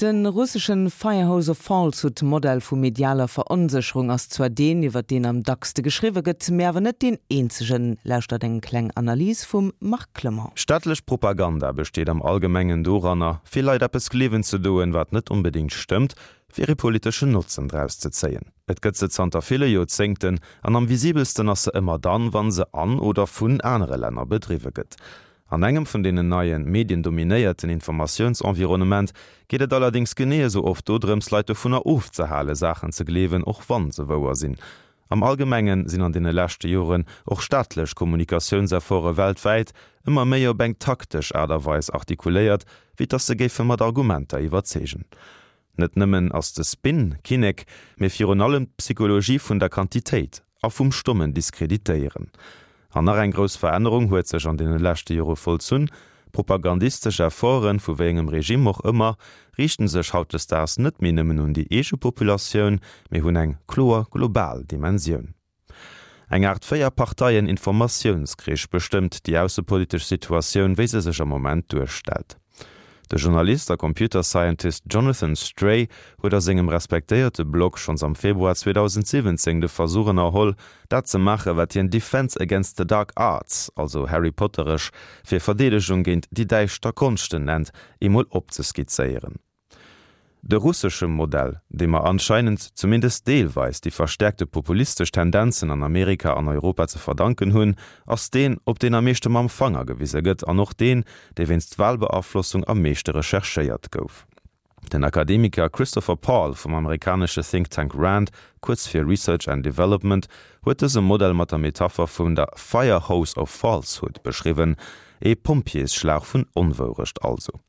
De russeschen Firehose of Falsehood Modell vu medialer Veronsécherung ass zwar deen, iwwer deen am dackste geschriwwe gëtt, mee awer net deen eenzegen. Lauschtert eng kleng Analys vum Marc Clement. Staatlech Propaganda besteet am Allgemengen doranner, fir Leit eppes gleewen ze doen, wat net onbedéngt stëmmt, fir ee politeschen Notzen draus ze zéien. Et gëtt se zanter ville Joerzéngten, an am visibelsten ass se ëmmer dann, wann se an oder vun anere Länner bedriwwe gëtt. An engem vun deenen neien, mediendominéierten Informatiounsenvironnement geet et allerdéngs genee esou oft dodrëms, Leit dovunner ofzehale Saachen ze gleewen, och wann se wouer sinn. Am Allgemengen sinn an deene leschte Joren och staatlech Kommunikatiounsefforte weltwäit ëmmer méi op eng taktesch Aart a Weis artikuléiert, wéi dass se géife mat Argumenter iwwerzeegen. Net nëmmen ass de Spin Kinnek, mee virun allem d'Psychologie vun der Quantitéit a vum stommen Diskreditéieren. An nach eng grouss Verännerung huet sech an deene leschte Jore vollzunn, Propagandistesch Efforten, vu wéi engem Regime och ëmmer, riichten sech hautdesdaags net méi nëmmen un déi eege Populatioun, mee hunn eng kloer global Dimensioun. Eng Aart Véier-Parteien-Informatiounskrich bestëmmt déi aussepolitesch Situatioun, wéi se sech am Moment duerstellt. De Journalist a Computer Scientist Jonathan Stray huet a sengem respektéierte Blog schonns am Februar 2017 de Versuch ënnerholl, dat ze maachen, wat hien Defense against the Dark Arts, also Harry Potteresch fir Verdeedegung géint déi däischter Konschten nennt, eemol opzeskizzéieren. De russesche Modell, deem mer anscheinend zumindest deelweis déi verstäerkte populistesch Tendenzen an Amerika an Europa ze verdanken hunn, ass deen, op deen am meeschte mam Fanger gewise gëtt an och deen, dee wéinst Wahlbeaflossung am meeschte recherchéiert gouf. Den Akademiker Christopher Paul vum amerikanesche Think Tank RAND, kuerz fir Research and Development, huet dëse Modell mat der Metapher vun der Fire Hose of Falsehood beschriwwen, ee Pompjeesschlauch vun Onwourecht also.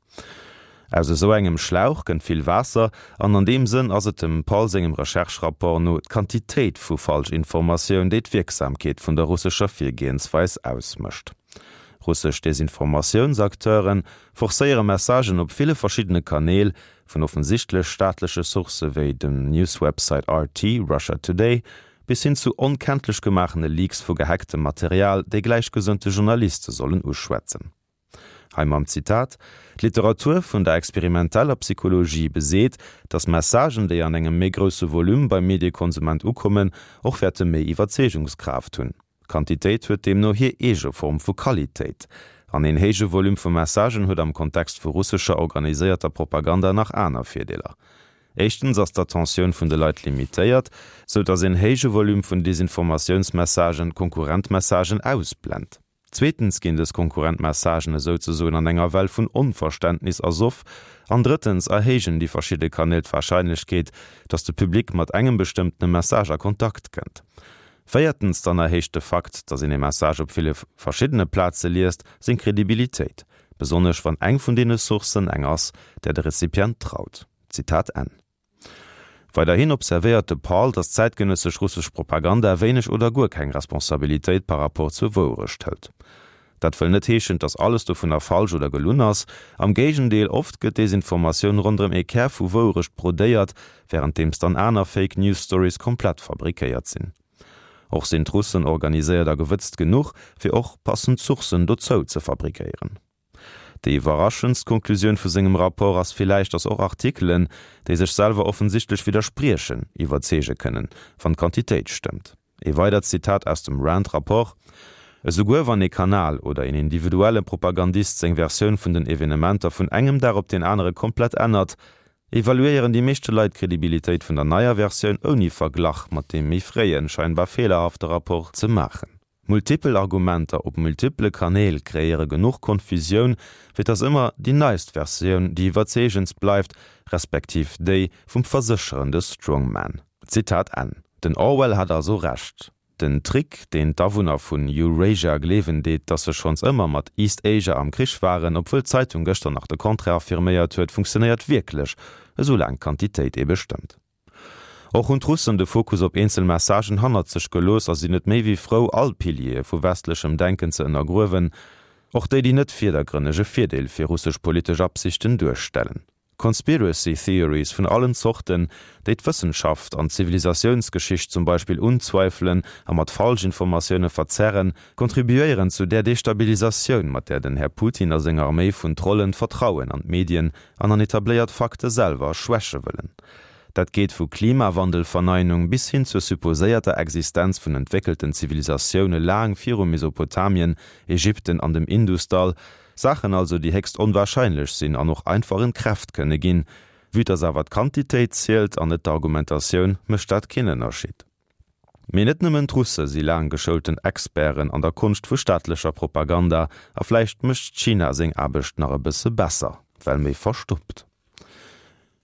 Aus esou engem Schlauch kënnt vill Waasser, an an deem Sënn ass et dem Paul sengem Recherche-Rapport no d'Quantitéit vu Falschinformatioun, déi d'Wierksamkeet vun der russescher Virgehensweis ausmécht. Russesch Desinformatiounsacteure forcéiere Messagen op ville verschiddene Kanäl, vun offensichtlech staatleche Sourcë wéi dem Newswebsite RT, Russia Today, bis hin zu onkenntlech gemaachene Leaks vu gehacktem Material, déi gläichgesënnte Journaliste sollen uschwätzen. Hei mam Zitat, D'Literatur vun der experimenteller Psychologie beseet, datt Messagen, déi an engem méi grousse Volume beim Mediekonsument ukommen, och wäerte méi Iwwerzeegungskraaft hunn. Quantitéit huet deemno hir eege Form vu Qualitéit. An een héije Volume vu Messagen huet am Kontext vu russescher organiséierter Propaganda nach aner Virdeeler. Éischtens ass d'Attentioun vun de Leit limitéiert, sou datt een héije Volume vun Desinformatiounsmessagen konkurrent Messagen ausblent. Zweetens ginn dës konkurrent Messagen esouzesoen an enger Well vun Onverständnis ersoff. An drëttens erhéijen déi verschidde Kanäl d'Warscheinlechkeet, datt de Public mat engem bestëmmtene Message a Kontakt kënnt. Véiertens dann erhéicht de Fakt, datt een e Message op ville verschiddene Plaze liest, seng Kredibilitéit, besonnesch wann eng vun deene Sourcen eng ass, där de Rezipient traut. Zitat Enn. Weiderhin observéiert de Paul, datt zäitgenëssesch russesch Propaganda wéineg oder guer keng Responsabilitéit par rapport zur Wouerecht hëlt. Dat wëll net heeschen, datt alles dovunner falsch oder gelunn ass. Am Géigendeel, oft gëtt Desinformatioun ronderëm ee Kär vu Wouerecht brodéiert, wärenddeems dann aner Fake News Stories komplett fabrikéiert sinn. Och sinn d'Russen organiséiert a gewëtzt genuch, fir och passend Sourcen dozou ze fabrikéieren. Déi iwwerraschendst Konklusioun vu sengem Rapport ass villäicht, datt och Artikelen, déi sech selwer offensichtlech widderspriechen, iwwerzeege kënnen, wann d'Quantitéit stëmmt. Ee weidert Zitat aus dem Rand-Rapport, Esouguer wann ee Kanal oder een individuelle Propagandist seng Versioun vun den Evenementer vun engem Dag op deen anere komplett ännert, evaluéieren déi meeschte Leit d'Kredibilitéit vun der neier Versioun ouni Verglach mat deem méi fréien, scheinbar feelerhafte Rapport ze maachen. Multipel Argumenter op multiple Kanäl kreéiere genuch Konfusioun, fir dass ëmmer déi neist Versioun déi iwwerzeegendst bleift, respektiv déi vum versécherende Strongman. Zitat Enn. Den Orwell hat also Recht. Den Trick, deen d'Awunner vun Eurasia gleewen deet, dass se schonns ëmmer mat East Asia am Krich waren, obwuel d'Zeitung gëschter nach de Contraire affirméiert huet, funktionéiert wierklech, esou laang d'Quantitéit ebe stëmmt. Och hunn d'Russen de Fokus op eenzel Messagen hannert sech gelooss a sinn net méi wéi frou, all Piliere vu westlechem Denken ze ënnergruewen, och déi, déi net virdergrënneg e Virdeel fir russesch politesch Absichten duerstellen. Conspiracy Theories vun allen Zorten, déi d'Wëssenschaft an d'Zivilisatiounsgeschicht zum Beispill unzweifelen a mat Falschinformatioune verzerren, contribuéieren zu där Destabilisatioun, mat där den Här Putin a seng Arméi vun Trollen d'Vertrauen an d'Medien an an etabléiert Fakte selwer schwäche wëllen. Dat geet vu Klimawandelverneinung bis hin zur supposéierter Existenz vun entwéckelten Zivilisatioune laang viru Mesopotamien, Ägypten an dem Indusdall, Saachen also, déi héchst onwahrscheinlech sinn an och einfach entkräft kënne ginn. Vue dass awer d'Quantitéit zielt an net d'Argumentatioun, mécht dat keen Ënnerscheed. Mee net nëmmen d'Russe si laang geschoulten Experten an der Konscht vu staatlecher Propaganda a vläicht mécht China seng Aarbecht nach e bësse besser, well méi verstoppt.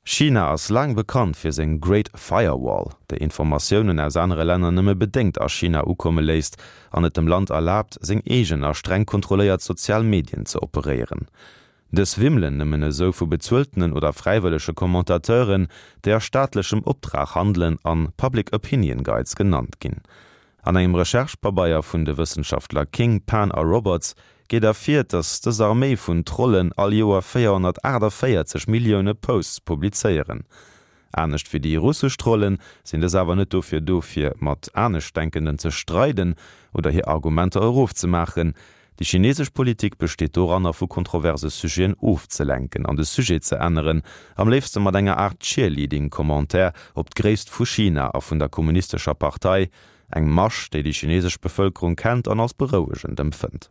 China ass laang bekannt fir seng Great Firewall, déi Informatiounen aus anere Länner nëmme bedéngt a China ukomme léisst an et dem Land erlaabt, seng eegen a streng kontrolléiert sozial Medien ze operéieren. Dës wimmelen nëmmen esou vu bezueltenen oder fräiwëllege Commentateuren, déi a staatlechem Optrag handelen an Public Opinion Guides genannt ginn. An engem Recherche-Pabeier vun de Wëssenschaftler King, Pan a Roberts geet ervir, datt dës Arméi vun Trollen all Joer 448 Millioune Posts publizéieren. Anescht wéi déi russesch Trollen sinn dës awer net dofir do fir mat Aneschtdenkenden ze streiden oder hir Argumenter erofzemaachen. Déi chinesesch Politik besteet doranner vu kontroverse Sujeten ofzelenken an de Sujet ze änneren, am léifste mat enger Aart Cheerleading-Commentaire op d'Gréisst vu China a vun der kommunistescher Partei, eng Masch, déi déi chinesesch Bevëlkerung kennt an als berouegend empfënnt.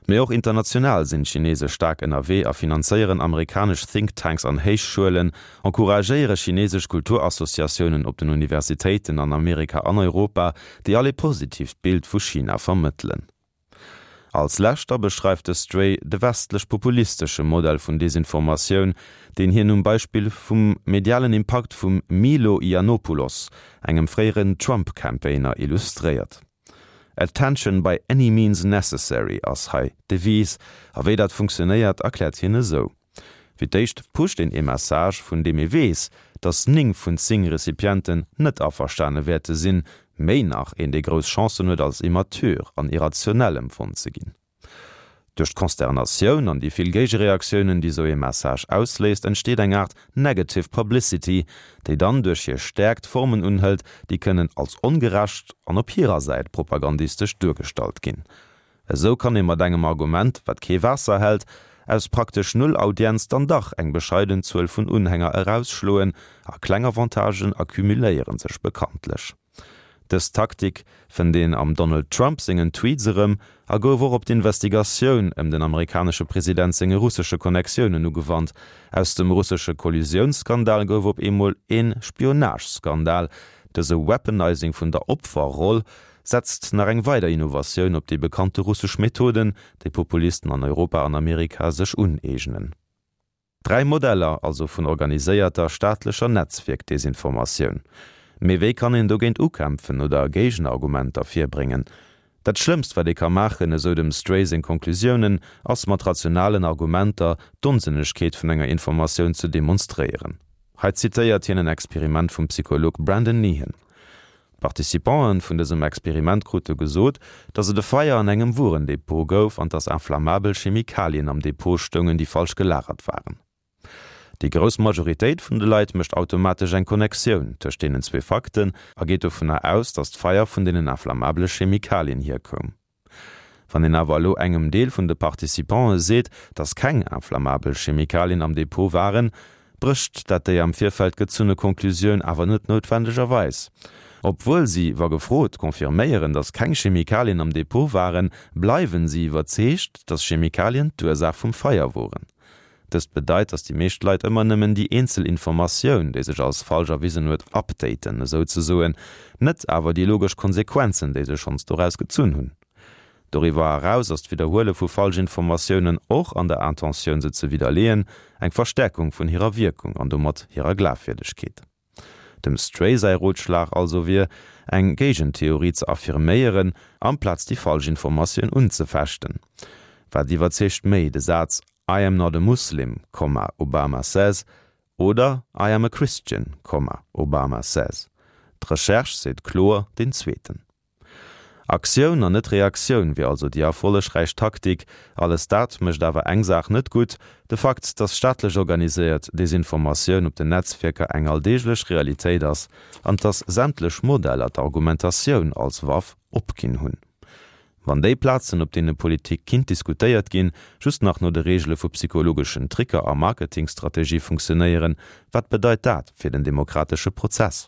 Mee och international sinn d'Chinese staark ënnerwee a finanzéieren amerikanesch Think Tanks an Héichschuelen, encouragéiere chinesesch Kulturassociatiounen op den Universitéiten an Amerika an Europa, déi all ee positiivt Bild vu China vermëttelen. Als lescht da beschreift de Stray de westlech-populistesche Modell vun Desinformatioun, deen hien um Beispill vum medialen Impakt vum Milo Yiannopoulos, engem fréieren Trump-Campaigner, illustréiert. Attention by any means necessary ass hei d'Devise, a wéi dat funktionéiert, erkläert hien esou. Fir d'éischt pusht een ee Message, vun deem ee weess, datt 9 vun 10 Recipienten net averstane wäerte sinn, méi nach, een dee grouss Chancen huet als immature an irrationell empfonnt ze ginn. Duerch d'Consternatioun an déi vill Géigereaktiounen, déi sou ee Message ausléist, entsteet eng Aart negative publicity, déi dann duerch hir Stäerkt Formen unhëlt, déi kënnen als ongerecht an op hirer Säit propagandistesch duergestallt ginn. Esou kann ee mat engem Argument, wat kee Waasser hält, aus praktesch null Audienz dann dach eng bescheiden Zuel vun Unhänger erausschloen, a kleng Avantagen accumuléiere sech bekanntlech. Dës Taktik fënnt een am Donald Trump sengen Tweets erëm a gouf och op d'Investigatioun ëm den amerikanesche President senge russesche Connectiounen ugewannt. Aus dem russesche Kollusiounsskandal gouf op eemol ee Spionageskandal. Dëse Weaponizing vun der Opferroll setzt nach eng weider Innovatioun op déi bekannte russesch Methoden, déi Populisten an Europa an Amerika sech uneegnen. Dräi Modeller also vun organiséierter staatlecher Netzwierk-Desinformatioun. Mee wéi kann een dogéint ukämpfen oder Géigenargumenter virbréngen? Dat Schlëmmst wat ee ka maachen, esou dem Stray seng Konklusiounen, ass mat rationalen Argumenter d'Onsënnegkeet vun enger Informatioun ze demonstréieren. Hei zitéiert hien en Experiment vum Psycholog Brandon Nehan. D'Participanten vun dësem Experiment krute gesot, dass et e Feier an engem Wuerendepot gouf an dass inflammabel Chemikalien am Depot stoungen, déi falsch gelagert waren. Déi grouss Majoritéit vun de Leit mécht automatesch eng Connectioun tëscht deenen zwee Fakten a geet dovunner aus, dass d'Feier vun deenen inflammabele Chemikalien hierkoum. Wann een awer elo engem Deel vun de Participantë seet, datt keng inflammabel Chemikalien am Depot waren, brécht dat déi am Virfeld gezunne Konklusioun awer net noutwendegerweis. Obwuel si, wa gefrot, confirméieren, datt keng Chemikalien am Depot waren, bleiwen si iwwerzeegt, datt Chemikalien d'Ursaach vum Feier woren. Dëst bedeit, datt déi meescht Leit ëmmer nëmmen déi eenzel Informatioun, déi sech als falsch erwisen huet, updaten, esouzesoen, net awer déi logesch Konsequenzen, déi se schonns doraus gezunn hunn. Doriwwer eraus ass d'Widderhuele vu Falschinformatiounen, och an der Intentioun se ze widderleeën, eng Verstäerkung vun hirer Wierkung an domat hirer Glafwierdegkeet. Dem Stray säi Rotschlag also wier, eng Géigentheorie ze affirméieren, amplaz déi falsch Informatioun unzefechten. Wat iwwerzeegt méi, de Saz I am not a Muslim, Obama says oder I am a Christian, Obama says? D'Recherche seet kloer deen zweeten. Aktioun an net Reaktioun wier also déi erfollegräich Taktik. Alles dat mécht awer eng Saach net gutt, de Fakt, datt staatlech organiséiert Desinformatioun op den Netzwierker eng alldeeglech Realitéit ass an datt sämtlech Modeller d'Argumentatioun als Waff opginn hunn. Wann déi Plazen, op deene Politik kinnt diskutéiert ginn, just nach no de Reegele vu psychologeschen Tricker a Marketingstrategie funktionéieren, wat bedeit dat fir den demokratesche Prozess?